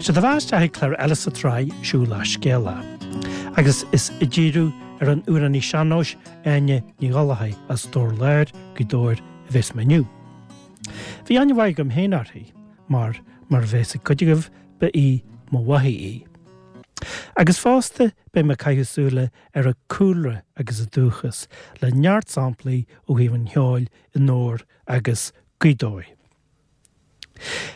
Sea, do mheas isteach ag clár eile sa tsraith Siúlach Scéalach. Agus is ag díriú ar an amhránaí sean-nóis Áine Ní Ghallchóir as Dobhar Láir, Gaoth Dobhair, a bheas mé inniu. Bhí aithne mhaith agam féin uirthi, mar, mar a bheas ag cuid agaibh, ba í mo mháthair í. Agus fosta beidh mé ag caitheamh súile ar a cúlra agus a dúchas, le neart samplaí ó thaobh an cheoil i nDobhar agus Gaoth Dobhair.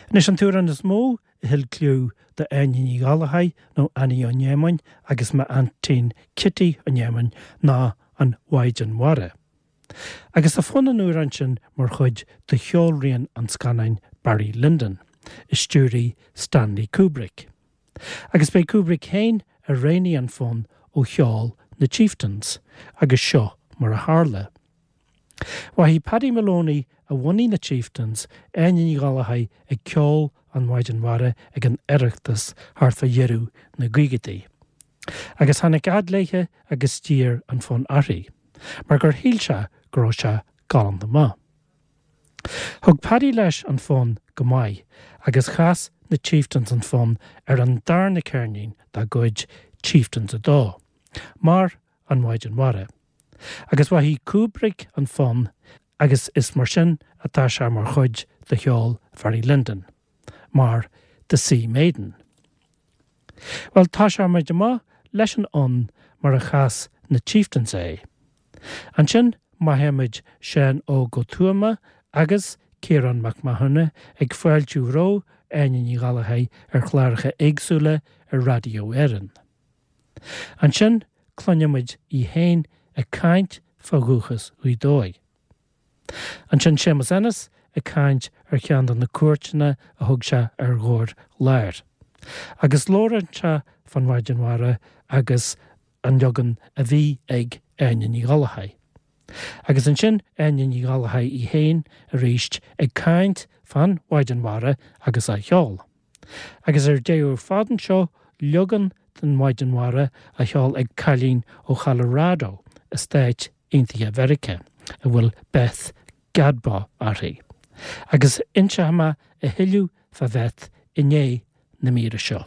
Anois an t-amhrán is mó a thuill cliú do Áine Ní Ghallchóir nó Annie Ó Néamáin agus m'aintín Cití Ó Néamáin ná An Mhaighdean Mhara. Agus tá fonn an amhráin sin mar chuid de cheolrian an scannáin Barry Lyndon, a stiúraigh Stanley Kubrick. Agus b'é Kubrick féin a roghnaigh an fonn ó cheol na Chieftains, agus seo mar a tharla. Mhaithigh Paddy Moloney a bhunaigh na Chieftains, Áine Ní Ghallchóir ag ceol An Mhaighdean Mhara ag an Oireachtas thart fá dheireadh na gcaogaidí. Agus tháinig fhad léithe agus d'iarr an fonn uirthi, mar gur shíl sé go raibh sé galánta maith. Thug Paddy leis an fonn go maith agus chas na Chieftains an fonn ar an darna ceirnín dá gcuid, Chieftains 2, mar An Mhaighdean Mhara. Agus mhaithigh Kubrick an fonn agus is mar sin atá sé mar chuid de cheol Bharry Lyndon, mar The Sea Maiden. Bhuel, tosóidh muid amach leis an fhonn mar a chas na Chieftains é. Ansin maitheoidh muid Seán Óg Ó Tuama agus Ciarán Mac Mathúna ag fáiltiú roimh Áine Ní Ghallchóir ar chláracha éagsúla ar Raidió Éireann. Ansin cluinfidh muid í féin ag caint fá dhúchas Ghaoth Dobhair. Ansin Séamus Ennis ag caint ar cheann de na cuairteanna a thug sé ar Dhobhar Láir. Agus labhrann sé fán Mhaighdean Mhara agus an leagan a bhí ag Áine Ní Ghallchóir. Agus ansin Áine Ní Ghallchóir í féin arís ag caint fán Mhaighdean Mhara agus á cheol. Agus ar deireadh ar fad anseo leagan den Mhaighdean Mhara á cheol ag cailín ó Cholorado i Stáit Aontaithe Mheiriceá a bhfuil Beth Gadbaw uirthi. Agus inseoidh mé a thuilleadh fá Bheth i ndiaidh na míre seo.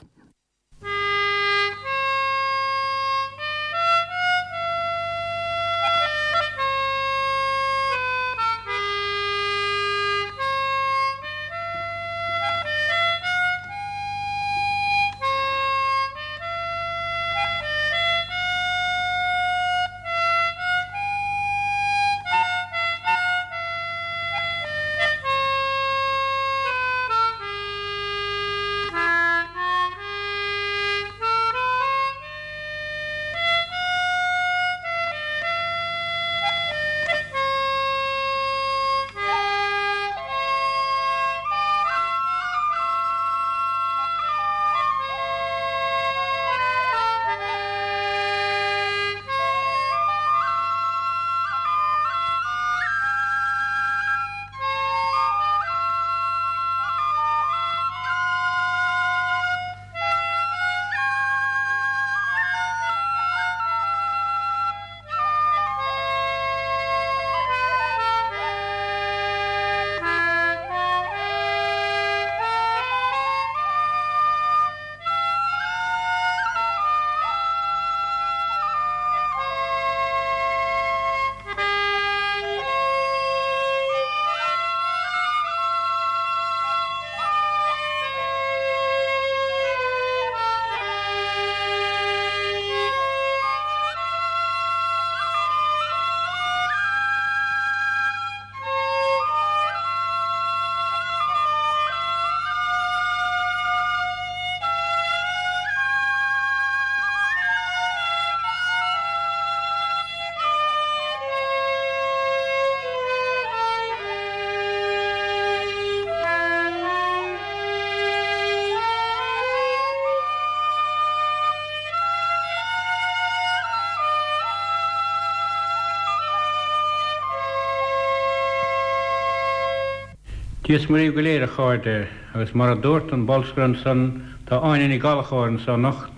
Dia is Muire dhaoibh go léir, a chairde, agus mar a dúirt an bolscaire ansan, tá Áine Ní Ghallchóir anso anocht.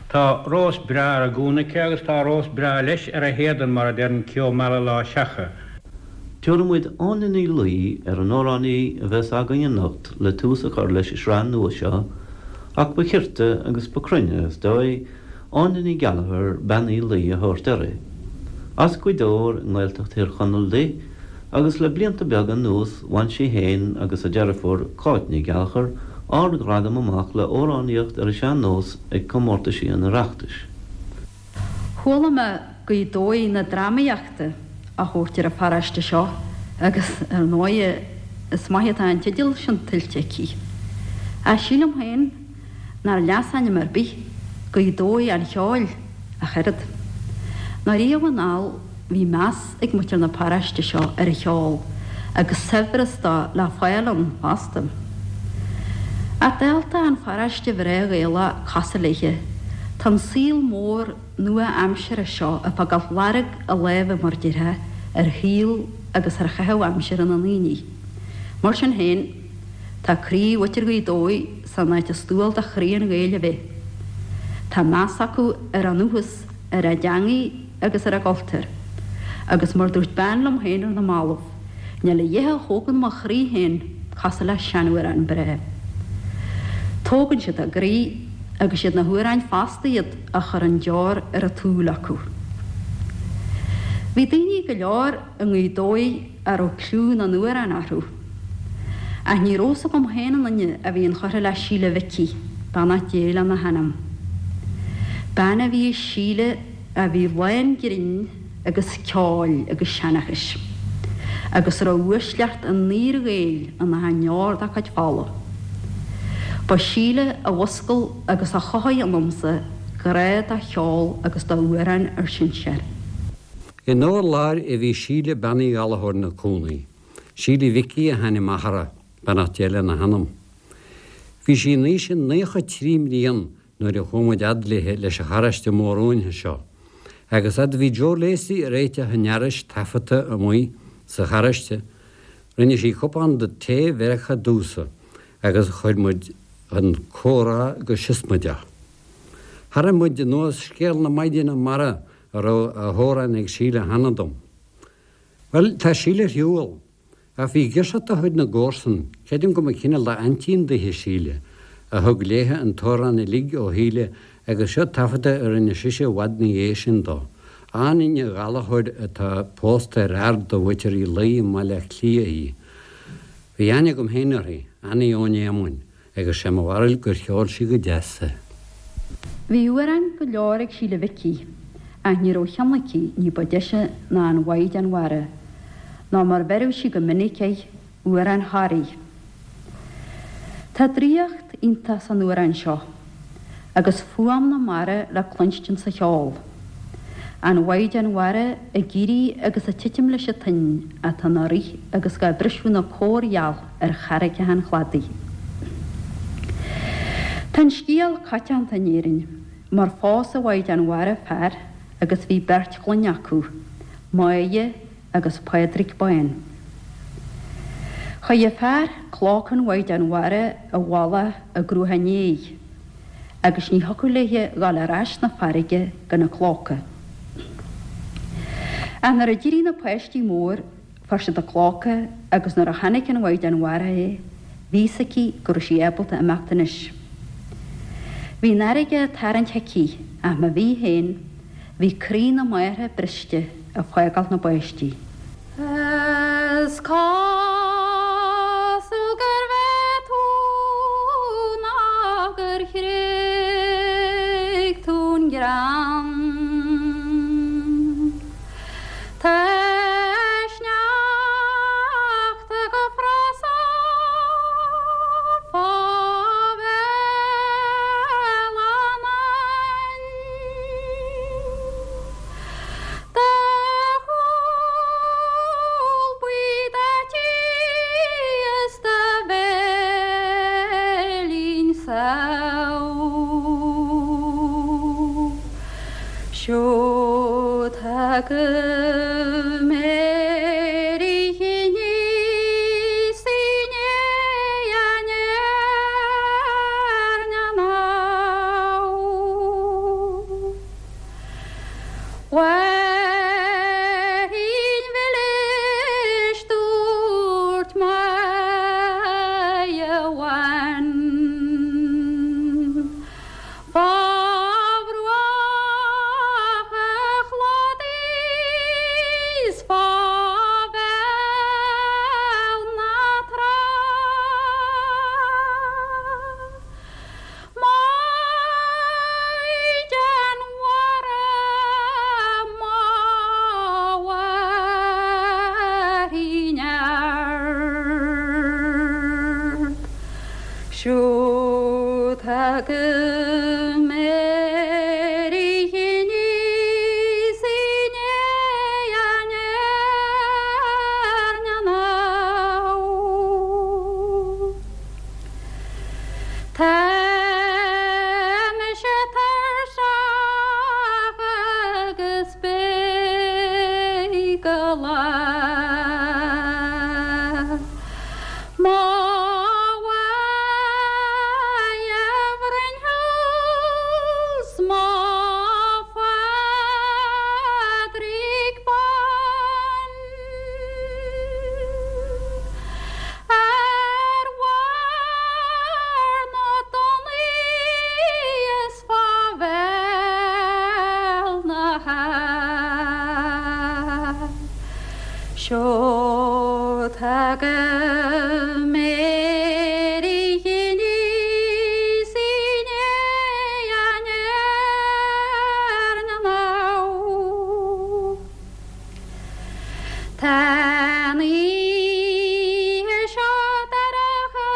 Tá rós breá ar a gúna aici agus tá rós breá leis ar a héadan mar a deireann Ceo Meala Lá Seacha. Tabharfaidh muid Áine Ní Laoi ar an amhránaí a bheas againn anocht le tús a chur leis an sraith nua seo. Ach ba chirte agus ba cruinne, is dóigh, Áine Ní Gheallchóir, Bean Uí Laoi a thabhairt uirthi. As Gaoth Dobhair i nGaeltacht Thír Chonaill di, agus le blianta beaga anuas bhain sí féin agus a deirfiúr, Cáit Ní Ghallchóir, ard-ghradam amach le amhránaíocht ar an sean-nós ag comórtaisí an Oireachtais. Chuala mé Gaoth Dobhair na drámaíochta á thabhairt ar an pharóiste seo agus, ar ndóighe, is maith atá an teideal sin tuillte aici. Ach sílim féin nár leasainm ar bith Gaoth Dobhair an cheoil ach oiread. Nó riamh anall bhí meas ag muintir na paróiste seo ar an cheol agus saibhreas dó le fáil ann fosta. Ach dálta an pharóiste bhreá Ghaelach cosúil léithe, tá an saol mór nua-aimseartha seo ag fágáil lorg a láimhe, mar déarfá, ar shaol agus ar chaitheamh aimsire na ndaoine. Mar sin féin, tá croí mhuintir Ghaoth Dobhair san áit is dual do chroí an Ghaeil a bheith. Tá meas acu ar a ndúchas, ar a dteangaidh agus ar a gcultúr. Agus mar dúirt bean liom féin ar na mallaibh, níl a dhath a thógann mo chroí féin cosúil le seanamhrán breá. Tógann siad a gcroí agus siad na hamhráin fosta iad a chuireann deor ar an tsúil acu. Bhí daoine go leor i nGaoth Dobhair a raibh cliú na n-amhrán orthu. Ach ní raibh fhios agam féin an duine a bhí inchurtha le Síle Mhicí, beannacht Dé lena hanam. Bean a bhí i Síle a bhí lán grinn agus ceoil agus seanchais, agus a raibh uaisleacht an fhíor-Ghaeil in achan ndeor dá cuid fola. Ba Síle a mhuscail agus a chothaigh ionamsa grá do cheol agus d'amhráin ár sinsear. I nDobhar Láir a bhí Síle Bean Uí Ghallchóir ina cónaí. Síle Mhicí a hainm athara, beannacht Dé lena hanam. Bhí sí in aois a 93 mblian nuair a chuaigh muid fhad léithe leis an charráiste mór uainthe seo. Agus fhad a bhí Joe Lacey ag réiteach an fhearais taifeadta amuigh sa charráiste, rinne sí cupán de tae Mheiriceá domhsa agus chuir muid chun comhrá go siosmaideach. Tharraing muid anuas scéal na maighdeana mara a raibh á hamhrán ag Síle cheana dom. Bhuel, tá Síle ar shiúl, ach bhí girseach de chuid na gcomharsan, creidim go mba cineál d'aintín daoithe Síle, a thug léithe an t-amhrán uilig ó Shíle agus seo taifeadadh a rinne sise i bhfad 'na dhiaidh sin dó. Áine Ní Ghallchóir atá pósta ar fhear de mhuintir Uí Laoi i mBaile Átha Cliath í. Bhí aithne agam féin uirthi, Annie Eoin Éamoinn, agus sé mo bharúil gur cheol sí go deas é. Bhí amhráin go leor ag Síle Mhicí, ach ní raibh cheann aici ní ba deise ná an Mhaighdean Mhara, nó mar bheireadh sí go minic air, Amhrán Thoraí. Tá draíocht iontach san amhrán seo, agus fuaim na mara le cluinstin sa cheol. An Mhaighdean Mhara ag éirí agus ag titim leis an toinn atá ina rith agus dhá briseadh ina córgheal ar charraigeacha an chladaigh. Tá an scéal coitianta in Éirinn, mar phós an Mhaighdean Mhara fear agus bhí beirt chlainne acu, Máire agus Pádraig Bán. Chuir an fear clóca an Mhaighdean Mhara i bhfolach i gCruaich Néidh agus ní thiocfadh léithe dhul ar ais 'na farraige gan an clóca. Ach nuair a d'éirigh na páistí mór fuair siad an clóca agus nuair a chonaic an Mhaighdean Mhara é bhí fhios aici go raibh sí ábalta imeacht anois. Bhí an fharraige ag tarraingt chuici ach má bhí féin Bhí croí na máthar briste ag fágáil na bpáistí. Is cosúil gur bheith tú ná gur thréig tú an greann. Tá sneachta go frosach fá bhéal an abhainn. Do chúl buí daite is do bhéilín samh. Siúd agaibh Mary Chiníos í ndiaidh an Éirne Mháirín mhilis dúirt Máire bhán. tagaim ar oíche aníos i ndiaidh an airne anall. Tá mise tuirseach agus beidh go lá. Mo mhaith a bhroinn thú 's mo Phádraig bán Ar bharr na dtonnaí is fá bhéal na habhann. Seo tagaim ar oíche aníos i ndiaidh an airne anall. Tá an oíche seo dorcha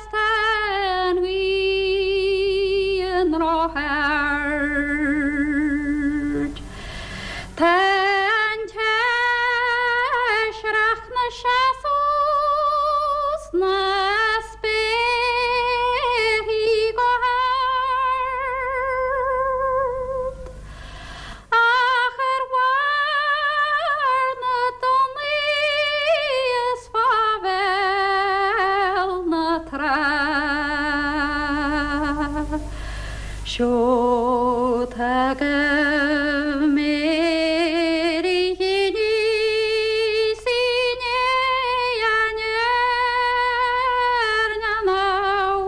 's tá an ghrian ró-ard. Tá an taisreach 'na seasamh sna spéarthaí go hard, ach ar bharr na dtonnaí is fá bhéal na trá. Seo tagaim ar oíche aníos i ndiaidh an airne anall.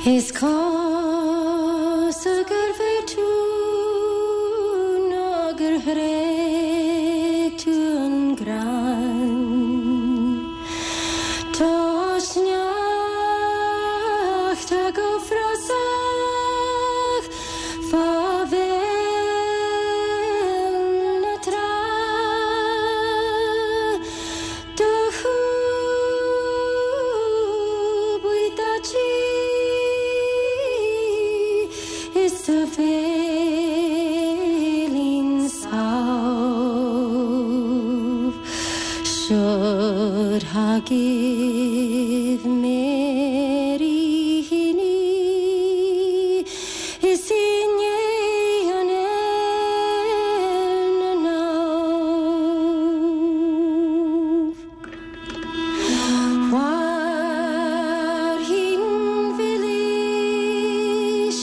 Is cosúil gur bhfuair tú nó gur thréig tú an greann. Tá sneachta go frosach fá bhéal na trá. Do chú buí daite is do bhéilín sámh. Seo'd thagaibh Mary Heaney is i ndiaidh an airne anall. Mhairfinn mhilis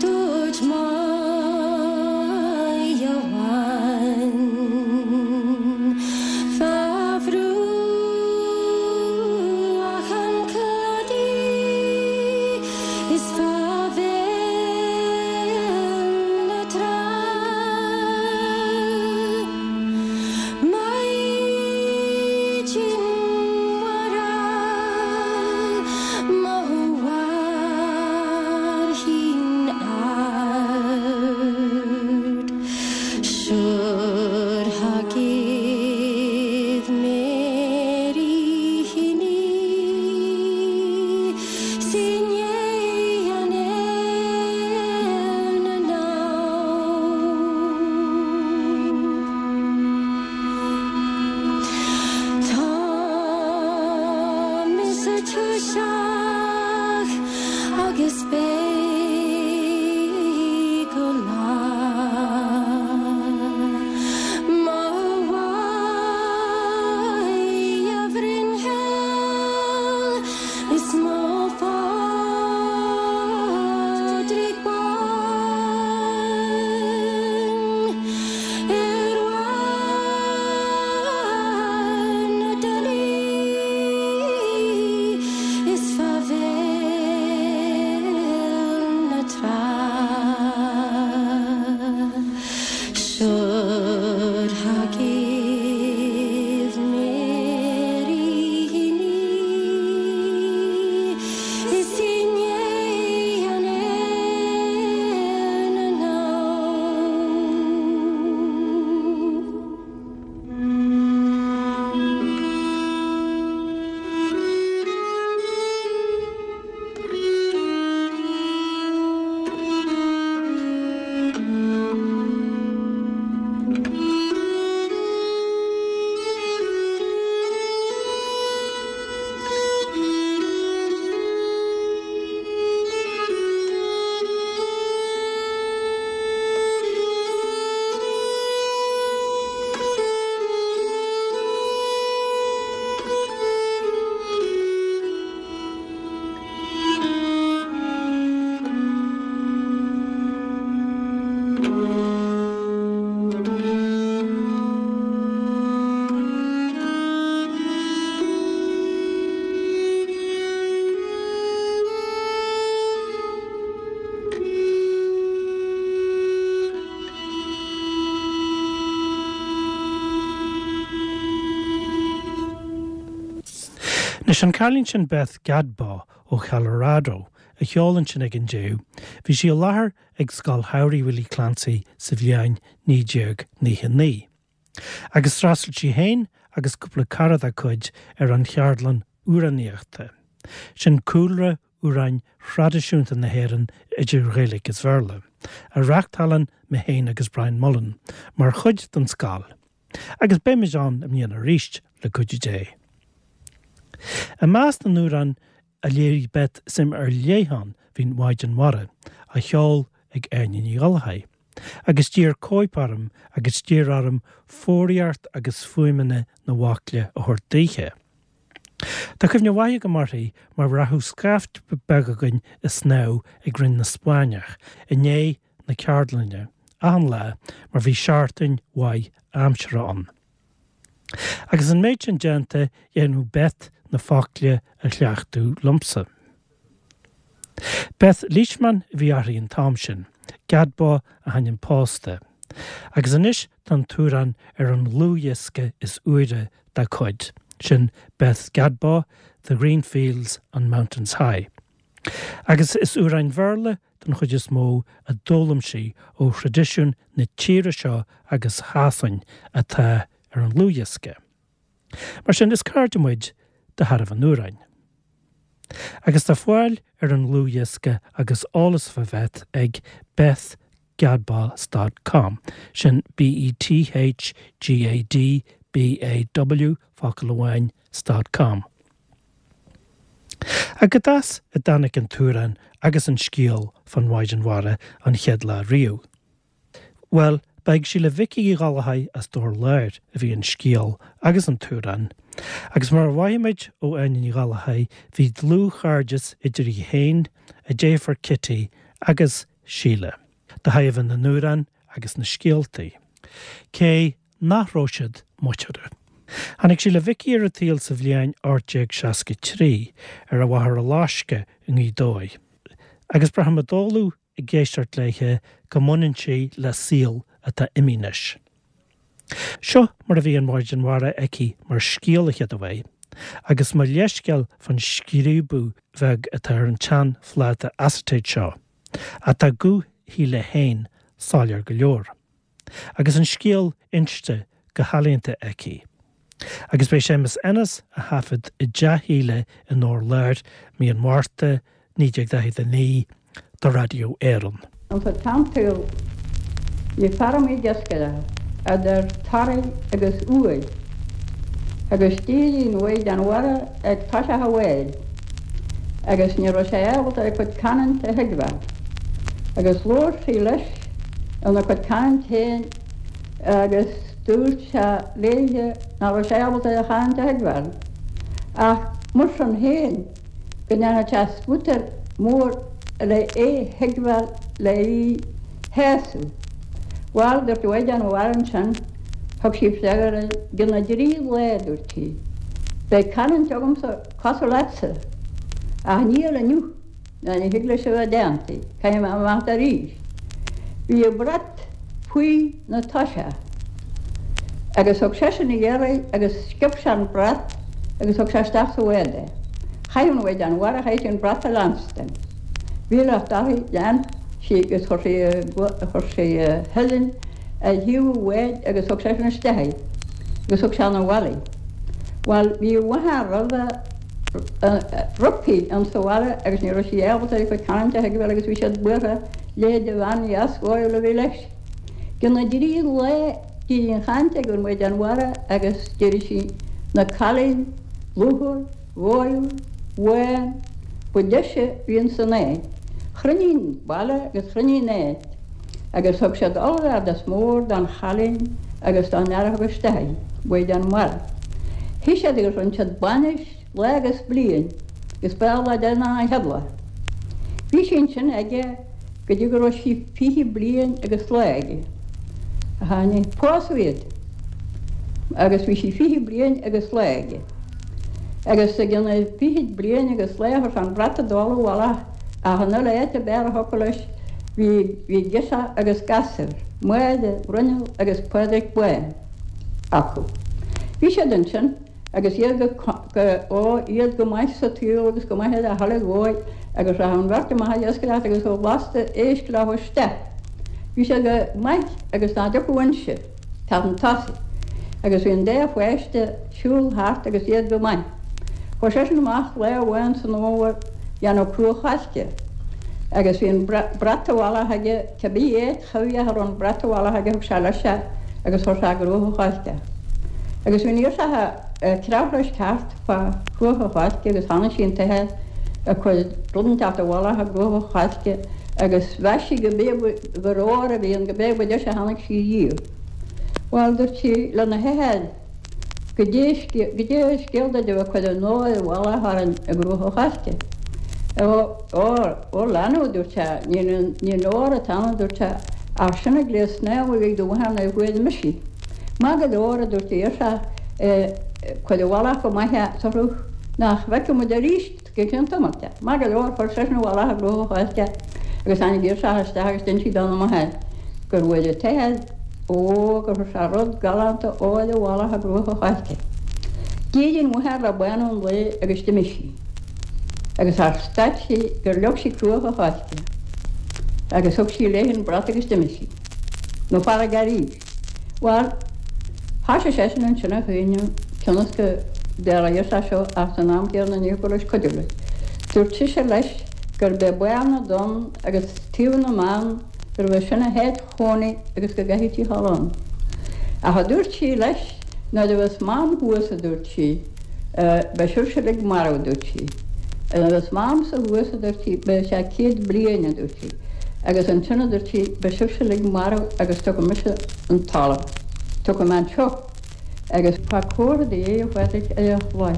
dúirt Máighe amháin Fá bhruach an claí. Isteach agus beidh go lá Mo mhaith a Bhruinnhil is mo Phádraig Bán Ar bharr na dtulaí is fá bhéal na trá Should ha give Mary Is inné an éan Anois an cailín sin Beth Gadbaw ó Cholorado a cheol ansin ag an deireadh, bhí sí i láthair ag Scoil Shamhraidh Willie Clancy sa bhliain 1999. Agus d'fhreastail sí féin agus cúpla cara dá cuid ar an cheardlann amhránaíochta. Sin cúlra amhráin thraidisiúnta na hÉireann idir Ghaeilge is Bhéarla, a reáchtálann mé féin agus Brian Mullen mar chuid den scoil. Agus beimid ann i mbliana arís, le cuidiú Dé. I measc na n-amhrán a léirigh Beth suim ar leith ann bhí an Mhaighdean Mhara, á cheol ag Áine Ní Ghallchóir, agus d'iarr cóip orm agus d'iarr orm foghraíocht agus fuaimeanna na bhfocla a thabhairt daoithe. Tá cuimhne mhaith agam uirthi mar rachadh scaifte beag againn ag snámh ag Rinn na Spáinneach i ndiaidh na ceardlainne achan lá mar bhí seachtain mhaith aimsire ann. Agus an méid sin déanta dhéanfadh Beth na focla a chleachtadh liomsa. Beth Leishman a bhí uirthi an t-am sin, Gadbaw a hainm pósta. Agus anois tá an t-amhrán ar an dlúthdhiosca is úire dá cuid, sin Beth Gadbaw, The Green Fields on Mountains High. Agus is amhráin Bhéarla den chuid is mó a d'fhoghlaim sí ó thraidisiún na tíre seo agus Shasain atá ar an dlúthdhiosca. Mar sin, is cairde muid de thairbhe an amhráin. Agus tá fáil ar an ndlúthdhiosca agus eolas fá Bheth ag bethgadbaw dot com, sin B-E-T-H-G-A-D-B-A-W, focal amháin, dot com. Ach cad as a dtáinig an t-amhrán agus an scéal fán Mhaighdean Mhara an chéad lá riamh? Bhuel, ba ag Síle Mhicí Uí Ghallchóir as Dobhar Láir a bhí an scéal agus an t-amhrán, agus mar a mhaímid ó Áine Ní Ghallchóir, bhí dlúthchairdeas idir í féin, a deirfiúr Kitty agus Síle, de thairbhe na n-amhrán agus na scéaltaí. Cé nach raibh siad muinteartha. Tháinig Síle Mhicí ar an tsaol sa bhliain 1863 ar an Mhachaire Loiscthe i nGaoth Dobhair, agus braithim i dtólamh ag éisteacht léithe go mbaineann sí le saol atá imithe anois. Seo mar a bhí an Mhaighdean Mhara aici mar scéal a chéad uair, agus mo leithscéal fán scríobadh bheag atá ar an tsean-phláta acetate seo, ach tá guth Shíle féin soiléir go leor. Agus an scéal inste go healaíonta aici. Agus b'é Séamus Ennis a thaifead i dTeach Shíle i nDobhar Láir mí an Mhárta 1949 do Radio Éireann. Ins an tsean-tsaol bhí feirmí iascaireachta idir Toraigh agus Uaimh agus d'éirí an Mhaighdean Mhara ag toiseach an bháid. Agus ní raibh sé ábalta a cuid canúint a thuigbheáil. Agus labhair sí leis ina cuid canúint féin agus dúirt sé léithe nach raibh sé ábalta a chanúint a thuigbheáil. Ach mar sin féin go ndéanfadh sé spútar mór le é thuigbheáil le í shásamh. Bhal, dúirt an Mhaighdean Mhara ansin, thug sí freagra i gcionn na dtrí lá, dúirt sí, beidh canúint agamsa cosúil leatsa, ach níl inniu, ná ní thig leis a bheith déanta, caithfidh mé imeacht arís. Bhí a brat faoi na toiseach agus thug seisean a iarraidh agus sciob sé an brat agus thug sé isteach sa bhád é. Chaith an Mhaighdean Mhara, chaith sí an brat a leanstan. Bhí locht uirthi, lean sí agus chuir sí a, chuir sí a huillinn ar thaobh an bháid agus thug seisean isteach í agus thug sé 'na bhaile í. Bhuel, bhí a mháthair roimhe roimpi in sa bhaile agus ní raibh sí ábalta ar a cuid canúint a thuigbheáil agus bhí siad buartha leithéid de bhean dheas dhóighiúil a bhí leis. I gcionn na dtrí lá d'éirigh an chaint ag an Mhaighdean Mhara agus d'éirigh sí 'na cailín lúthmhar, dhóighiúil, bhán, ba deise a bhí ins an áit. Chruinnigh an baile agus chruinnigh an áit agus thug siad ollbhardas mór don chailín agus don fhear a thug isteach í, Mhaighdean Mhara. Shuigh siad agus rinne siad bainis lá agus bliain agus ba é an lá deireanach an chéad lá. Bhí sí ansin aige go dtí go raibh sí 20 bliain agus lá aige. A tháinig, pósadh iad agus bhí sí 20 bliain agus lá aige. Agus i gcionn na fichid bliain agus lá chuir sé an brat i dtoll i bhfolach ach an uile áit ab fhearr a thiocfadh leis bhí bhí girseach agus gasúr, Máire, Bruinneall agus Pádraig Bán, acu. Bhí siad ansin agus iad go go ó iad go maith sa tsaol agus go maith ar a thuilleadh dhóibh agus rachadh an bheirt amach ag iascaireacht agus thabharfadh lasta éisc leo isteach. Bhí siad go maith agus ná dtiocfadh inse. Teacht chun tosaigh agus bhí an dá pháiste siúl thart agus iad go maith. Chuaigh seisean amach lá amháin san fhómhar dhéanamh cruach choillte agus bhí an brat i bhfolach aige, cibé áit chuimhneach a raibh an brat i bhfolach aige thug sé leis é agus chuir sé i gcruach an choillte é. Agus bhí an ghirseach ag creabhadh leis thart fá chruach an choillte agus chonaic sí an t-athair ag cur rud inteacht i bhfolach i gcruach an choillte agus mheas sí go b'é gur ór a bhí ann, go b'é ba deise a chonaic sí riamh. Bhuel, dúirt sí lena hathair goidé goidé scéal duit a bheith ag cur an óir i bhfolach orainn i gcruach an choillte. Ó, ó, ó leanbh, a dúirt sé, ní ní an ór atá ann, a dúirt sé, ach sin an gléas snámha a bhí ag do mháthair nuair a fuair mise í. Maith go leor, a dúirt an ghirseach, cuir i bhfolach go maith é sa chruth nach bhfeicfidh muid arís. Go ceann tamaill de. Maith go leor, chuir seisean i bhfolach i gcruach an choillte agus tháinig an ghirseach isteach agus d'inis sí dona máthair gur bhfuair an t-athair ó gur chuir sé rud galánta óir i bhfolach i gcruach an choillte. D'éirigh an mháthair le bánú an lae agus d'imigh sí. Agus char stad sí gur leag sí cruach an choillte agus thug sí léi an brat agus d'imigh sí. 'Na farraige arís. Bhuel, thoisigh seisean ansin a chaoineadh cionn is go dtarlaíodh sé seo ach san am céanna ní thiocfadh leis cuidiú leis. Dúirt sise leis gurb é Barr na dTonn agus Taobh na mBan gurbh é sin a háit chónaí agus go gcaithfeadh sí a dhul ann. Ach a dúirt sí leis, nuair a bheas Mam thuas, a dúirt sí, beidh sibhse uilig marbh, a dúirt sí. Nuair a bheas Mamsa thuas, a dúirt sí, beidh sé 100 bliain, a dúirt sí. Agus ansin, a dúirt sí, beidh sibhse uilig marbh agus tiocfaidh mise an talamh. Tiocfaidh mé anseo agus fág comhartha do Dhé, a Phádraic, ar an chlaí.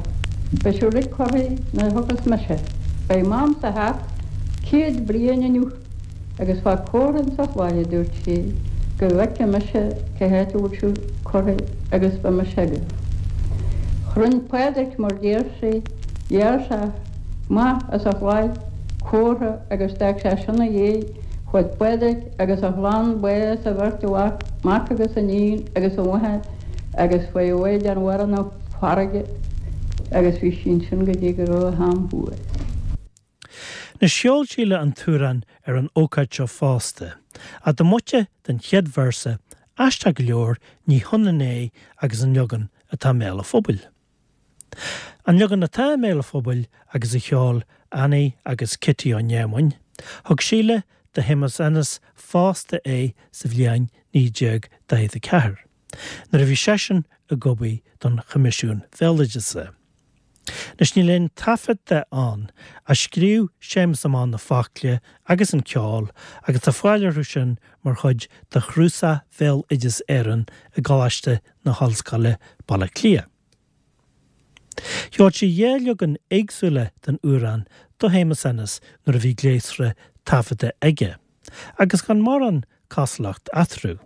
Beidh sibh uilig curtha nuair a thiocfas mise. Beidh Mamsa thart 100 bliain inniu agus fág comhartha insa chlaí, a dúirt sí, go bhfeicfidh mise cá háit a bhfuil sibh curtha agus beidh mise agaibh. Rinne Pádraic mar deir sí, ghearr sé amach as an chlaí comhartha agus d'fhág sé sin 'na dhiaidh, chuaigh Pádraic agus a chlann ba is a bheirt mhac, mac agus iníon agus a mháthair agus chuaigh an Mhaighdean Mhara 'na farraige agus bhí sí ansin go dtí go raibh a ham thuas. Anois cheol Síle an t-amhrán ar an ócáid seo fosta, ach diomaite den chéad véarsa, aisteach go leor ní hionann é agus an leagan atá i mbéal an phobail. An leagan atá i mbéal an phobail agus a cheol Annie agus Kitty Ó Néamoin, thug Síle do Shéamus Ennis fosta é sa bhliain 1944, nuair a bhí seisean ag obair don Choimisiún Bhéaloideasa. Anois níl aon taifead de ann, ach scríobh Séamus amach na focla agus an ceol agus tá fáil orthu sin mar chuid de Chnuasach Bhéaloideas Éireann i gColáiste na hOllscoile, Baile Átha Cliath. Cheol sí 2 leagan éagsúla den amhrán do Shéamus Ennis nuair a bhí gléasra taifeadta aige, agus gan mórán cosúlacht eatarthu.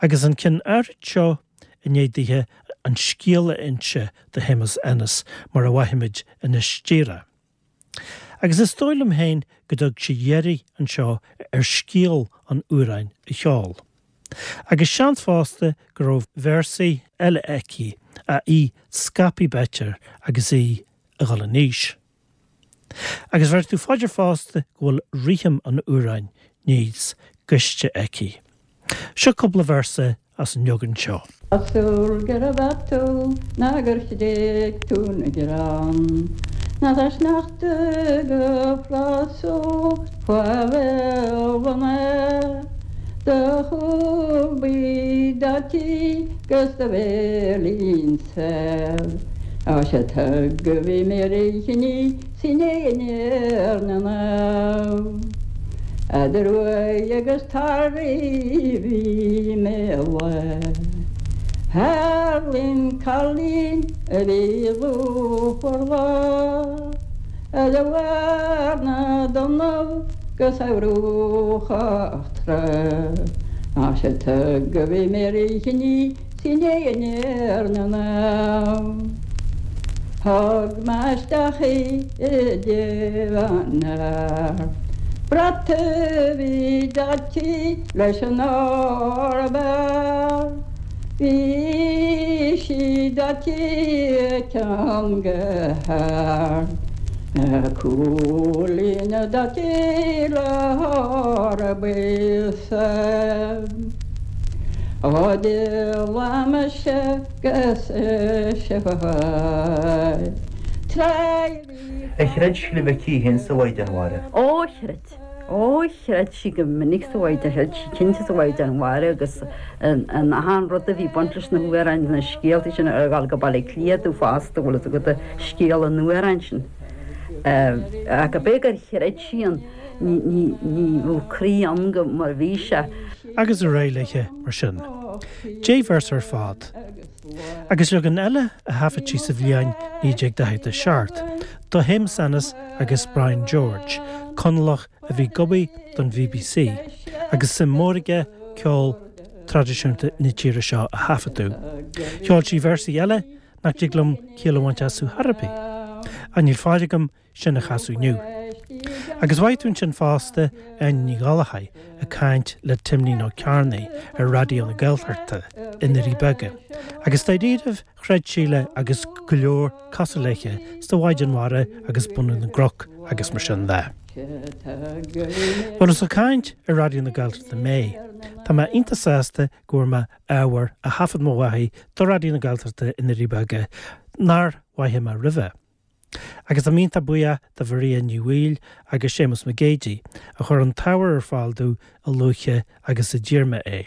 Agus an ceann áirid seo i ndiaidh dithe an scéal a inse do Shéamus Ennis mar a mhaífimid anois díreach. Agus is dóigh liom féin go dtug sí deireadh anseo ar scéal an amhráin a cheol. Agus seans fosta go raibh véarsaí eile aici ach í scaipthe b'fhéidir agus í ag dul in aois. Agus bhéarfaidh tú fá dear fosta go bhfuil rithim an amhráin níos gaiste aici. Seo cúpla véarsa as an leagan seo. Cosúil gurbh ea tú ná gur thréig tú na greann Ná tá sneachta go flasúil faoi bhéal an aer Do chúl buí daite 'gus do bhéilín saor Á sé tug a bhí mé ríchinní sin é an éirne ná Eadar uaidh agus tarraí bhí mé le Thar linn cailín a bhí lúfar lá A do bharr na dtonnaibh 'gus a bhruachach trá Ná sé tug a bhí mé ríchinní Sin é an éirne ná Thug mé isteach í i dtigh an fhear. Brat a bhí daite leis an ór ab fhearr. Bhí sí daite ceann go hard. Na cúilíní daite le hór buí sámh. Ó d'fhill mise 'gus ise tráth Ar chreid Síle Mhic Aoidh féin sa Mhaighdean Mhara? Ó chreid. Ó chreid sí go minic sa Mhaighdean, chreid sí cinnte sa Mhaighdean Mhara agus in achan rud a bhí baint leis na hamhráin, na scéaltaí sin ar dhul go Baile Átha Cliath domh fosta, bhfuil fhios agat, scéal an amhráin sin. Ach ab é gur chreid sí ann. Ní raibh croí ann go mar a bhí sé. Agus ar aghaidh léithe mar sin. 10 véarsa ar fad. Agus leagan eile a thaifead sí sa bhliain 1947 do Shéamus Ennis agus Brian George, Conallach a bhí ag obair don BBC agus suim mhór aige ceol traidisiúnta na tíre seo a thaifeadadh. Cheol sí véarsaí eile nach dtig liom ciall a bhaint astu chor ar bith. Ach níl fáil agam sin a chasadh inniu. Agus mhaífidh tú ansin fosta Áine Ní Ghallchóir ag caint le Timlín Ó Cearnaigh ar Raidió na Gaeltachta i nDoirí Beaga. Agus dáiríribh chreid Síle agus go leor cosúil léithe sa Mhaighdean Mhara agus bunú na gcnoc agus mar sin de. Bhuel is ag caint ar Raidió na Gaeltachta mé. Tá mé iontach sásta go bhfuair mé ábhar a thaifead mo mháthair do Raidió na Gaeltachta i nDoirí Beaga nár mhaígh mé roimhe. Agus táim iontach buíoch do Mharia Ní Bhaoill agus Séamus Mac Géidigh a chuir an t-ábhar ar fáil domh a luaithe agus a d'iarr mé é.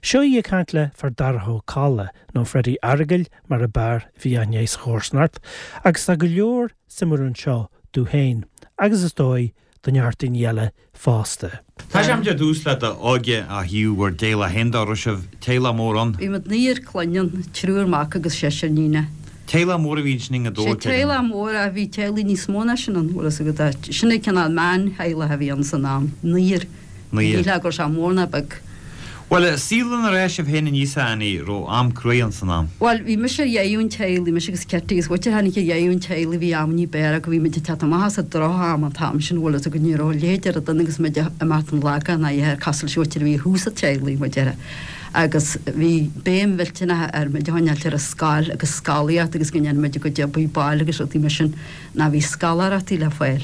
Seo í ag caint le Fear Darach Ó Colla, nó Freddie Fhearghail mar ab fhearr a bhí aithne air sa chomharsanacht, agus tá go leor suimiúil anseo domh féin agus is dóigh do neart daoine eile fosta. Tosóimid ar dtús le d'óige ó thaobh bhur dteaghlach féin de, raibh sibh teaghlach mór ann? Bhí muid naonúr clainne ann, triúr mac agus seisear iníonacha. Teaghlach mór a bhí ansin i nGaoth Dobhair, Sé teaghlach mór ach bhí teaghlaigh níos mó ná sin ann, bhfuil fhios agat, sin an cineál meántheaghlach a bhí ann san am, naonúr. Ní shílfeá go raibh sé mór ná beag. Bhuel, saol inar fhás sibh féin aníos, a Annie, raibh am cruaidh ann san am? Bhuel, bhí mise ar dheireadh an teaghlaigh, mise agus Kitty, agus b'fhéidir tháinig ar dheireadh an teaghlaigh, bhí amannaí b'fhearr go bhí muid ag teacht amach as an droch-am an t-am sin, bhfuil fhios agat, ní raibh a leithéid de rud ann agus muid ag imeacht an Lagán ná a dhath cosúil leis an mhuintir a bhí thuas sa teaghlaigh, mar a déarfá. Agus bhí béim mhillteanach ar muid a choinneáilt ar an scoil agus scolaíocht agus go ndéanadh muid a gcuid oibre baile agus rudaí mar sin. Ná bhí scoláireachtaí le fáil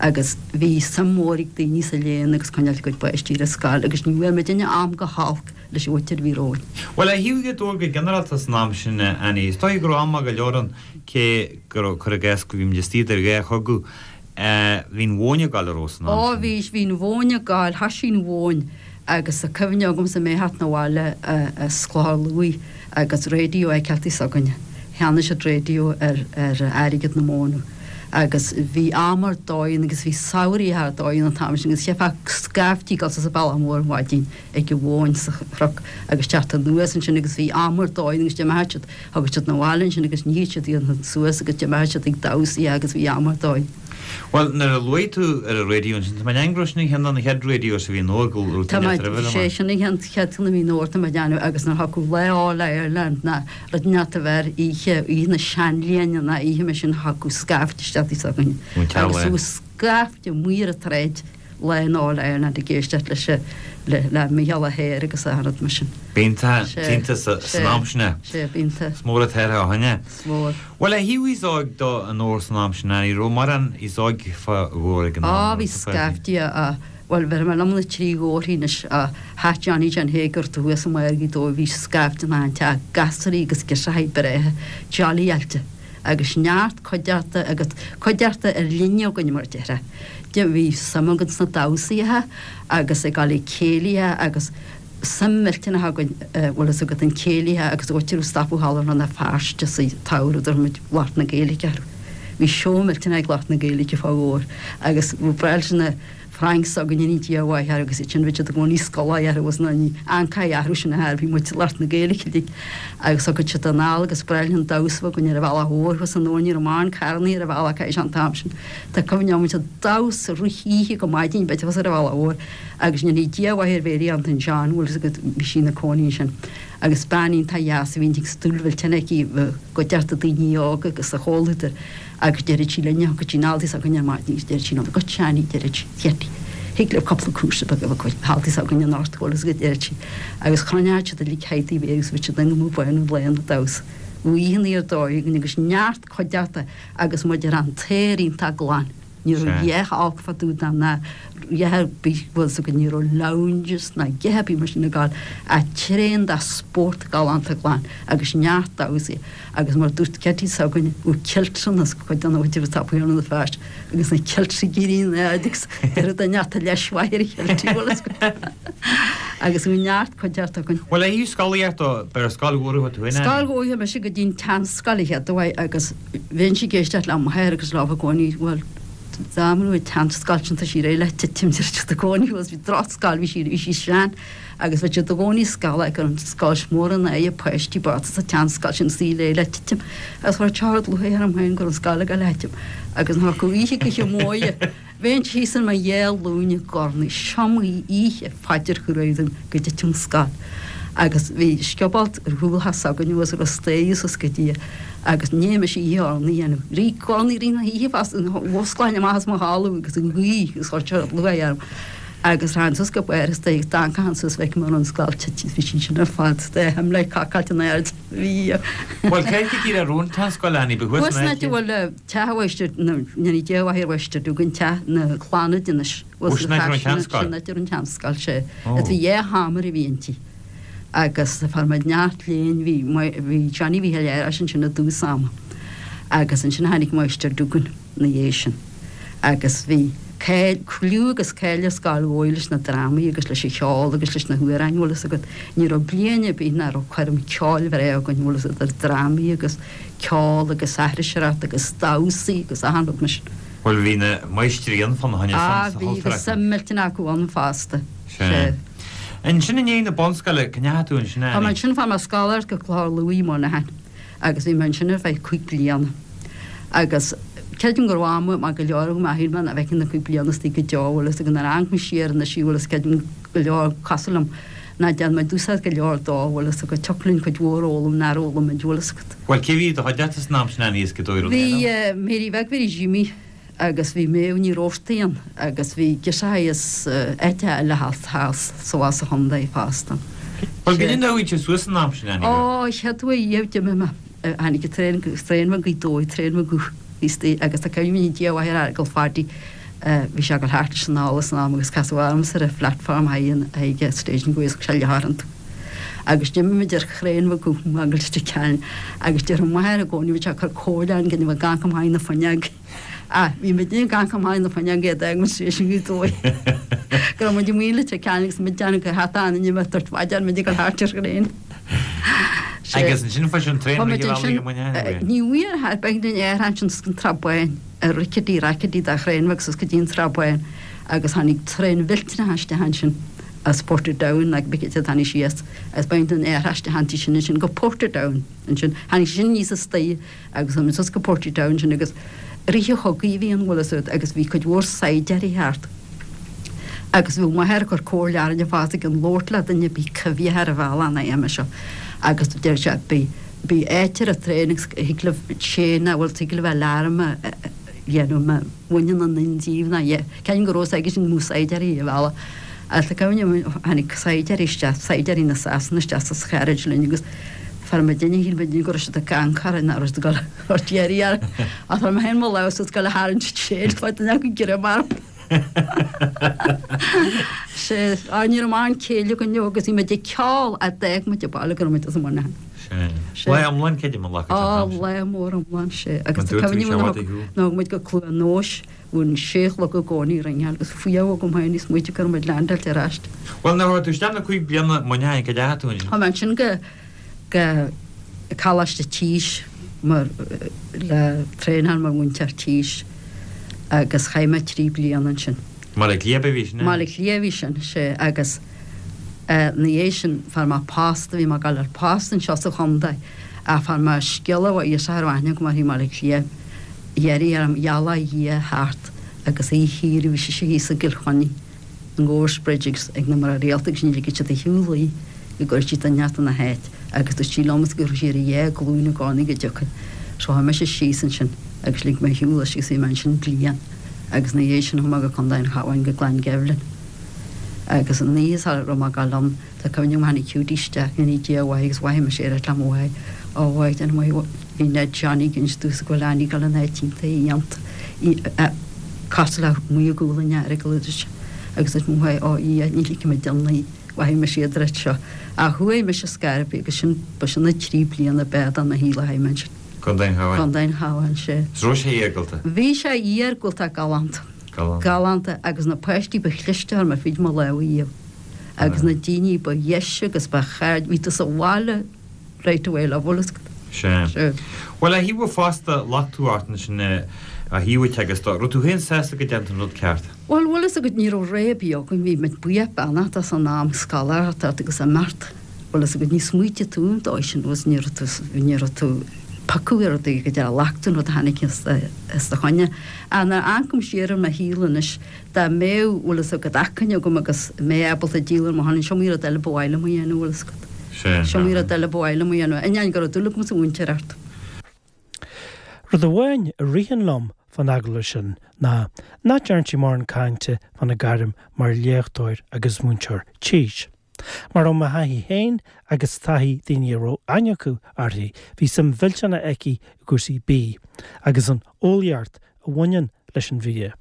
agus bhí suim mhór ag daoine sa léann agus coinneáil a gcuid páistí ar an scoil agus ní bhfuair muidinne am go holc leis an mhuintir a bhí romhainn. Bhuel, ó thaobh Ghaoth Dobhair go ginearálta san am sin, a Annie, is dóigh go raibh am maith go leor ann, cé go raibh, cuir i gcás, go bhí muid istigh idir dhá chogadh, bhí an mhóin ag gabháil an raibh san am Ó sin? bhí, bhí an mhóin ag gabháil, thoisigh an mhóin agus tá cuimhne agamsa mé a theacht 'na bhaile as Clochar Lughaidh agus radio a fheiceáil s'againne. Cheannaigh siad raidió ar ar airgead na móna agus bhí am ar dóigh ann agus bhí samhraí ar dóigh ann an t-am sin agus cheapfá scaifte ag dul suas an bealach mór ar maidin ag an mhóin sa chnoc agus teacht anuas ansin agus bhí am ar dóigh ann agus d'imeodh siad, thagadh siad 'na bhaile ansin agus níodh siad iad suas agus d'imeodh siad ag damhsaí agus bhí am ar dóigh. Bhuel, nuair a luaigh tú ar an raidió ansin, tá mé ag déanamh go raibh sin an cheann de na chéad radios a bhí i nDobhar go raibh Tá tú mé, ag roimhe sé sin an cheann chéad cheann a bhí i nDobhar tá mé ag déanamh agus nuair a thiocfadh lá All Ireland ná rud inteacht a bheith ar oíche, oíche na seanbhliana ná oíche mar sin thiocfadh scaifte isteach tigh s'againne Ón agus teaghlach. bhí scaifte amuigh ar an tsráid lá an All Ireland ag éisteacht leis an, le, le Mícheál Ó hEára agus achan rud mar sin. B'iontach, Sé, iontach sé, san am sin é. sé, b'iontach. Is mór an t-athrú ó shin é. Is mór. Bhuel, ó thaobh aos óg de i nDobhar san am sin, ní raibh mórán aos óg fá Dhobhar ag an am. Á, bhí scaifte, á, bhuel, bhéarfaidh mé liom na trí Dhobharthaí anois, á, theach Johnny John Hegarty thuas i mbarr Ghaoth Dobhair, bhí scaifte in achan teach, gasraí agus girseachaí breátha, jollyáilte, agus neart cuideachta agus cuideachta ar líne againn mar a déarfá. Bhí suim againn sna damhsaithe agus ag dul ag céilithe agus. suim mhillteanach againn, bhfuil fhios agat, an céilithe agus áit a raibh stopadh thall i Rann na Feirste sa tsamhradh, dúirt muid lucht na Gaeilge orthu. Bhí seó millteanach ag lucht na Gaeilge fá Dhobhar agus ba bhreá leis na Franks s'againne ní Dia a mhaith orthu agus iad sin bhí siad i gcónaí scoláí orthu agus ná ní ancáí athrú sin a thar bhí muid lucht na Gaeilge uilig agus thugad siad anall agus breá linn an damhsa a bheith againn ar an bhealach mhór thuas i nDobhar ní raibh mórán carrannaí ar an bhealach caithfidh sé an t-am sin. Tá cuimhne agam muid ag damhsa rith oíche go maidin b'fhéidir thuas ar an bhealach mhór Agus go ndéanaí Dia a mhaith ar Mhary Antain John, bhfuil fhios agat, bhí sí ina cónaí ansin. Agus bean iontach dheas a bhí an stiúil mhillteanach aici i gcuideachta daoine óga agus sa chomhluadar agus deireadh sí linne, thiocfadh sí anall tigh s'againne ar maidin agus deireadh sí liom, go Seánie, deireadh sí, Chetty, thig libh cúpla cúrsa beag a bheith acu thall tigh s'againne anocht, bhfuil fhios agat, deireadh sí. Agus chruinneodh siad uilig thigh Mhary agus bhí siad ag imeacht báin an lae ina damhsa. Bhí oícheanna ar dóigh againn agus neart cuideachta agus muid ar an t-aer iontach glan. Ní raibh a dhath olc fá dtaobh de ná a dhath ar bith, bhfuil fhios agat, ní raibh lounges ná a dhath ar bith mar sin ag gabháil ach tréan de spórt galánta glan agus neart damhsaí agus mar a dúirt Ceití s'againne, bhí kiltranna as cuid de na bhfuil tú ag Rann na Feirste agus na kiltry ag éirí in airde agus deireadh do neart a leis mhaith ar a chiltrí, bhfuil fhios agat. Agus bhí neart cuideachta againn. Bhuel, a thaobh scolaíocht de, b'ar scoil mhór a chuaigh tú in, Annie? Scoil mhór, mise go dtí an tseanscoil a chéad uair agus. Bheinnse ag éisteacht le m'athair agus leo i gcónaí, bhuel, dá mba an tseanscoil sin tá sí réidh le titim, deir siad i gcónaí, bhuel, bhí drochscoil, bhí sí, bhí sí sean agus bheadh siad i gcónaí ag scalladh go raibh an scoil mór in aghaidh páistí bochta sa tseanscoil sin is í réidh le titim agus chuir teocht lúcháir orm féin go raibh an scoil ag dul a thitim agus nuair a thiocfadh oíche go hIomóidhe Bheinn thíos ar mo dhá ghlúin ag urnaí is iomaí oíche phaidir chruaidh dom go dtitfeadh an scoil. Agus bhí scioból ar chúl theach s'againne agus a raibh staighre suas go dtí agus ní fhaca mise oíche urnaí a dhéanamh. Rith urnaí i rith na hoíche fosta, mhusclainn amach as mo chodladh agus an ghaoth agus chuir sé lúcháir orm. Agus rachainn suas go barr an staighre agus d'amharcfainn suas bhfeicfinn an raibh an scoil tite bhí sí sin ar fad dá himlé cacáilte in airde. Bhí. Bhuel, cé go díreach a raibh an tseanscoil, Annie, ba thuas Thuas in an áit a áit. bhfuil Teach an Mháistir, go ndéanaí Dia a mhaith ar Mháistir Dúgan, teach na Clannad anois. Ó, sin áit a raibh an tseanscoil. Sin áit a raibh an tseanscoil, sea. Is bhí dhá sheomra a bhí inti. Agus fuair muid neart léinn, bhí, bhí Johnny Mhíchíl Fhearghais ansin i dtús ama. Agus ansin tháinig Máistir Dúgan ina dhiaidh sin. Agus bhí cáil, cliú agus cáil ar Scoil Dhobhair leis na drámaí agus leis an cheol agus leis na hamhráin, bhfuil fhios agat. Ní raibh bliain ar bith nach raibh coirm ceoil bhreá againn, bhfuil fhios agat, idir drámaí agus. ceol agus aithriseoireacht agus damhsaí agus achan rud mar sin. Bhuel bhí na máistrí ann fána choinne Ah san sa bhí chultúr agus acu. suim millteanach acu ann fosta. Sea. Sea. Ansin i ndiaidh na bunscoile, cá ndeachaigh tú ansin Tá mé Annie? ansin, fuair mé scoláireacht go Clochar Lúith i Muineachán agus bhí mé ansin ar feadh cúig bliana. Agus creidim go raibh am maith go leor agam ach shíl mé nach bhfeicfinn na cúig bliana istigh go deo, bhfuil fhios agat, nuair a amharc mé siar anois bhfuil fhios creidim go leor cosúil liom nach ndearna muid úsáid go leor dó, bhfuil fhios agat, thiocfadh linn cuid mhór a fhoghlaim nár fhoghlaim muid, bhfuil fhios agat. Bhuel, cé bhí i do chuideachta san am sin, Annie, as Gaoth Dobhair, an Bhí é nó? Mary Bheag Mhary Jimí agus bhí Méabh Ní Robhartaigh ann agus bhí girseachaí as áiteacha eile thall thall sa bhá sa chontae fosta. Bhuel, goidé an dóigh a suas san am sin, Annie? Ó, chéad uair riamh d'imigh mé, tháinig an traein, traein bheag Ghaoth Dobhair, traein bheag thíos istigh agus tá cuimhne ag Dia a mhaith ar Fheargal Phaddy, bhí sé ag dul thart leis an anall san am agus casadh ormsa ar an phlatform ag an station go bhféadfadh sé leath iontu. Agus d'imigh muid ar thraein bheag go Leitir Ceanainn agus déarfadh m'athair i gcónaí bhí sé ag cur comhairle orainn go bhfuil gach amach na fuinneog. Ah, bhí muid ag gach amach na fuinneog iad ag muid station Ghaoth Dobhair. Go raibh muid amuigh i Leitir Ceanainn agus muid déanamh go hata an inniu dúirt mhaidin muid ag dul thart ar thraein. Agus ansin fuair an traein rith an bhealaigh i Muineachán? Ní bhfuair a bheidh den aer ansin sa tSrath Bán, ar rickety rackety de thraein agus is go dtí an tSrath Bán agus tháinig traein mhillteanach isteach ansin as Portadown ag Bicket a tháinig síos agus b'in den aer isteach anti sin ansin go Portadown ansin. Tháinig sin aníos istoíche agus tháinig suas go Portadown ansin agus rith an chogaidh a bhí ann bhfuil fhios agat agus bhí cuid mhór saighdeáirí thart agus bhí m'athair ag cur comhairle orainne fosta gan labhairt le duine ar bith coimhthíoch ar an bhealach ná aon seo agus deir sé bí bí áit ar an traein agus thig libh chain a bhfuil thig libh alarm a dhéanamh má bhaineann aon duine díobh ná ceann go raibh fhios aige sin go mbeadh saighdeáirí ar an bhealach Agus tá cuimhne agam tháinig saighdeáirí isteach, saighdeáirí na Sasana isteach sa charriage linn agus fuair muidinne, shíl muidinne go raibh siad ag amharc orainn, nach raibh siad ag dul a thabhairt iarraidh orainn. Ach fuair mé féin mo lámh suas ag dul a tharraingt chain, fuair duine acu greim orm. Sea, á ní raibh mórán céille againn leo agus bhí muid ag ceol a d'fhág muid an baile go raibh muid as an Muineachán. Sea. Lá iomlán creidim a ghlacadh an t-am sin. Á, lá mór iomlán, sea. Agus tá cuimhne agam nuair a thug muid go Cluain Nóis Bhí an sé a chlog i gcónaí ag ringeáil agus fuath agam féin ag smaoitiú go raibh muid leaindeáilte ar ais. Bhuel, nuair a chuaigh tú isteach na 5 bliana Muineachán, cá dteachaigh tú ansin? Chuaigh mé ansin go, go Coláiste Tís mar, le traenáil mar mhúinteoir tís agus chaith mé 3 bliana ansin. I mBaile Átha Cliath a bhí sin, eh? I mBaile Átha Cliath a bhí sin, sea, agus ina dhiaidh sin fuair mé post, bhí mé ag dul ar post anseo sa chontae ach fuair mé scéala ó ghirseach a raibh aithne agam uirthi i mBaile Átha Cliath, Iarraidh orm ghealach a Dhia thart agus oíche shaoire bhí sise thíos i gCill Chainnigh i Goresbridge agus ag na mná rialta agus ní ligfeadh siad ar shiúl í go gcuirfeadh sí duine inteacht ina háit agus dúirt sí liomsa go raibh sí ar a dhá glúin i gcónaí go dtiocfainn. So chuaigh mise síos ansin agus lig mé ar shiúl leis agus bhí mé ansin bliain agus ina dhiaidh sin chuaigh mé go Contae an Chabháin go Glangevlin agus an oíche sara raibh mé ag dul ann Tá cuimhne agam tháinig Judy isteach, go ndéana Dia a mhaith agus mhothaigh mise ar le mo mháthair, Ó a mháthair, déanfaidh mé Bhí Ned Johnny ag inse domhsa go bhfuil Annie ag dul in áit iontach iontach, cosúil le amuigh i gcúl an Earagail a dúirt sé. Agus dúirt mo mháthair, Ó a Dhia, ní ligfidh mé di í, mhothaigh mise iad roimh seo. Ach chuaigh mise scor ar bith agus sin, ba sin na trí bliana ab fhearr de mo shaol a chaith mé ansin. Contae an Chabháin. Contae an Chabháin, sea. Is raibh sé iargúlta? Bhí sé iargúlta galánta. Galánta. Galánta agus na páistí ba chliste a chuir mé fríd mo lámha riamh. agus na daoine ba dheise agus ba chairde, bhí tú sa bhaile right away leo, bhfuil fhios agat. Sea. Sea. Bhuel, a thaobh fosta, luchtú ort ansin a thaobh agus do, raibh tú féin sásta go dtearn tú an rud ceart? Bhuel, bhfuil fhios agat, ní raibh rogha ar bith againn, bhí muid buíoch beannach as an am scoláireacht ort agus imeacht, bhfuil fhios agat, ní smaoitigh tú an dóigh sin, bhfuil fhios, ní raibh tú, ní raibh tú piocadh ar rudaí go deo, ghlac tú an rud a tháinig os do choinne. Ach nuair a amharcaim siar ar mo shaol anois, Dá mbeadh, bhfuil fhios agat, acmhainn agam agus mé ábalta díol ar mo shon, is iomaí rud eile ba mhaith liom a dhéanamh, bhfuil fhios agat. Sea. Is iomaí rud eile ba mhaith liom a dhéanamh. Ainneoin go raibh dúil agam sa mhúinteoireacht. Rud amháin a ritheann liom fán agallamh sin ná nach dtearn sí mórán cainte fána gairm mar léachtóir agus múinteoir tís. Mar ó mo thaithí féin agus taithí daoine a raibh aithne acu uirthi, bhí suim mhillteanach aici i gcúrsaí bídh agus an eolaíocht a bhaineann leis an bhia.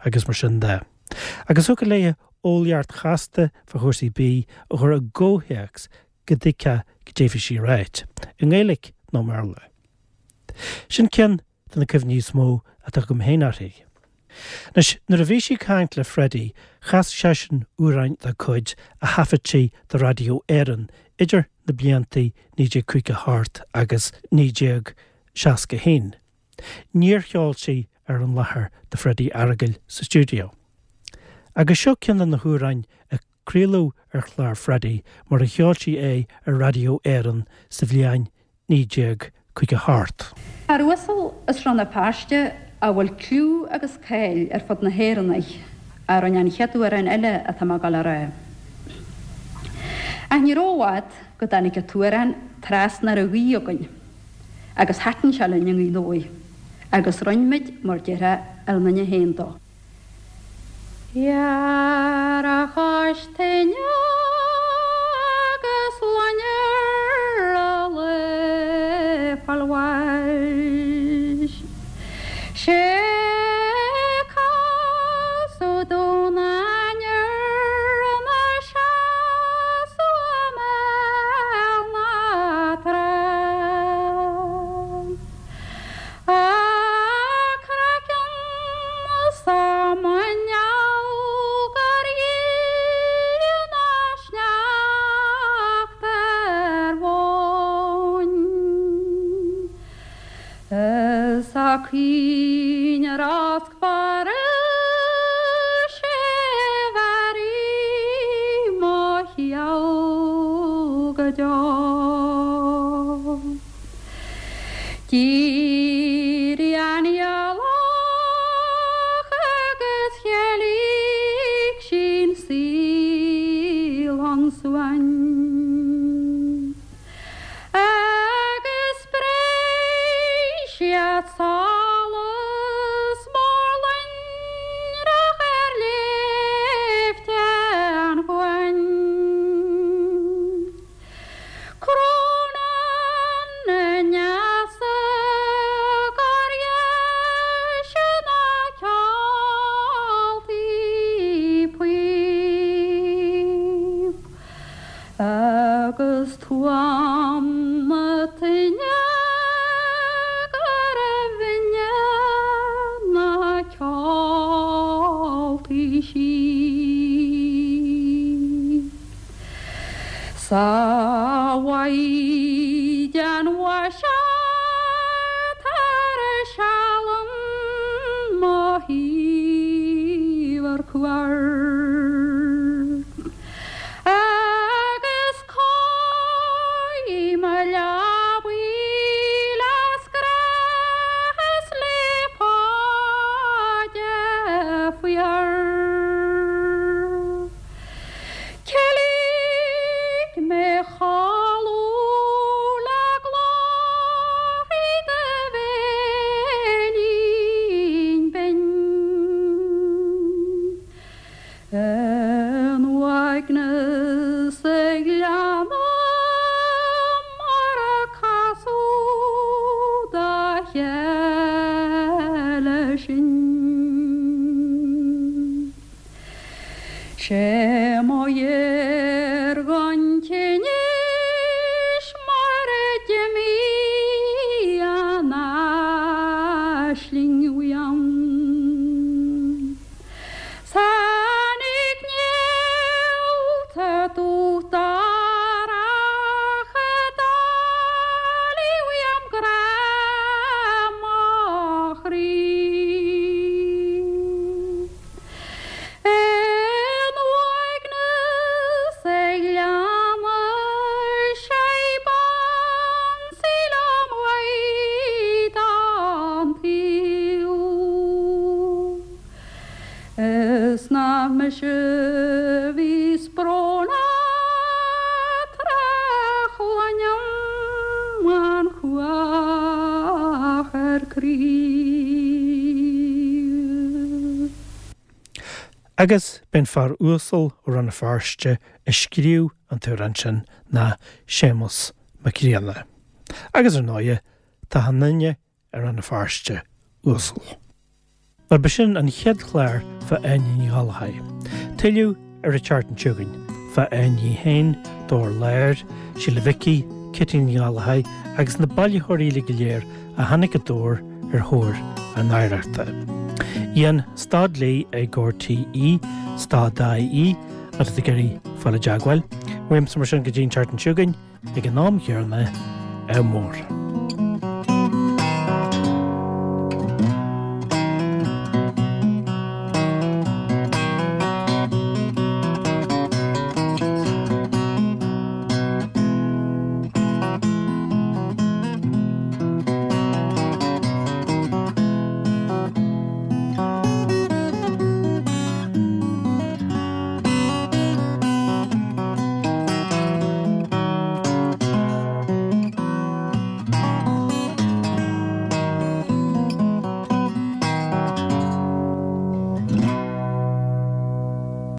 agus mar sin de. Agus thiocfadh léi eolaíocht chasta fá chúrsaí bídh a chur i gcomhthéacs go dtuigfeá goidé a bhí sí a ráit, i nGaeilge nó i mBéarla. Sin ceann de na cuimhní is mó atá agam féin uirthi. Anois, nuair a bhí sí ag caint le Freddie, chas seisean amhráin dá cuid a thaifead sí do Raidió Éireann idir na blianta 1958 agus 1961. Níor cheol sí ar an láthair do Freddie Fhearghail sa stiúideo. Agus seo ceann de na hamhráin a craoladh ar chlár Freddie mar a cheol sí é ar Raidió Éireann sa bhliain 1958. Fear uasal as Rann na Feirste a bhfuil cliú agus cáil ar fud na hÉireann air a rinne an chéad amhrán eile atá mé ag dul a rá. Ach ní raibh i bhfad go dtáinig an t-amhrán trasna ar an ghaoth againn. Agus thaitin sé linn i nGaoth Dobhair, agus rinn muid, mar déarfá, ár nduine féin dó. Fear a chois tine agus loinnir a lao fáil bháis. Sé casadh dún ainnir ina seasamh i mbéal na trá. A craiceann 's a muineál gur dhíth ná sneachta ar mhóin. Is a caoineadh rosc fairis é mhairfidh mo sheal go deo. D'éirigh an ghealach agus cheilic sí'n saol ansuain. Agus spréigh siad solas mór loinnreach ar shléibhte an chuain. Crónán na n-easa gur dheise ná ceoltaí píob. Agus tuaim na toinne gurbh bhinne na ceoltaí sí. Sa mhaighdean mhaise tar seal mo thaobh ar cuairt. Agus cóirigh mo leabaidh le scraith is le paide fuar. Ceiligh mé chodladh le glórthaí do bhéilín binn. In uaigneas ag leanadh mar a casadh dá chéile sinn. Sé mo dheargán tinnis mar a d'imigh an aisling uaim. Tháinig néalta dubh darach a d'éalaigh uaim grá mo chroí. In uaigneas ag leanadh sé b'ansaí liom uaidh an tsaol. Is nach mise a bhíos brónach tráth chluinim an chuach ar crith. Agus b'é an fear uasal ó Rann na Feirste a scríobh an t-amhrán sin ná Séamus Mac Grianna. Agus ar ndóighe, tá achan duine i Rann na Feirste uasal. Mar b'shin an chéad chlár fá Áine Ní Ghallchóir. Tuilleadh ar an tseachtain seo chugainn, fá Áine í féin, Dobhar Láir, Síle Mhicí, Kitty Ní Ghallchóir agus na bailitheoirí uilig go léir a tháinig go Dobhar ar thóir a n-oidhreachta. Ian, stad léi ag RTÉ, stad.ie, má tá tú ag iarraidh fáil i dteagmháil. Uaimse mar sin go dtí an tseachtain seo chugainn, ag an am chéanna, ádh mór.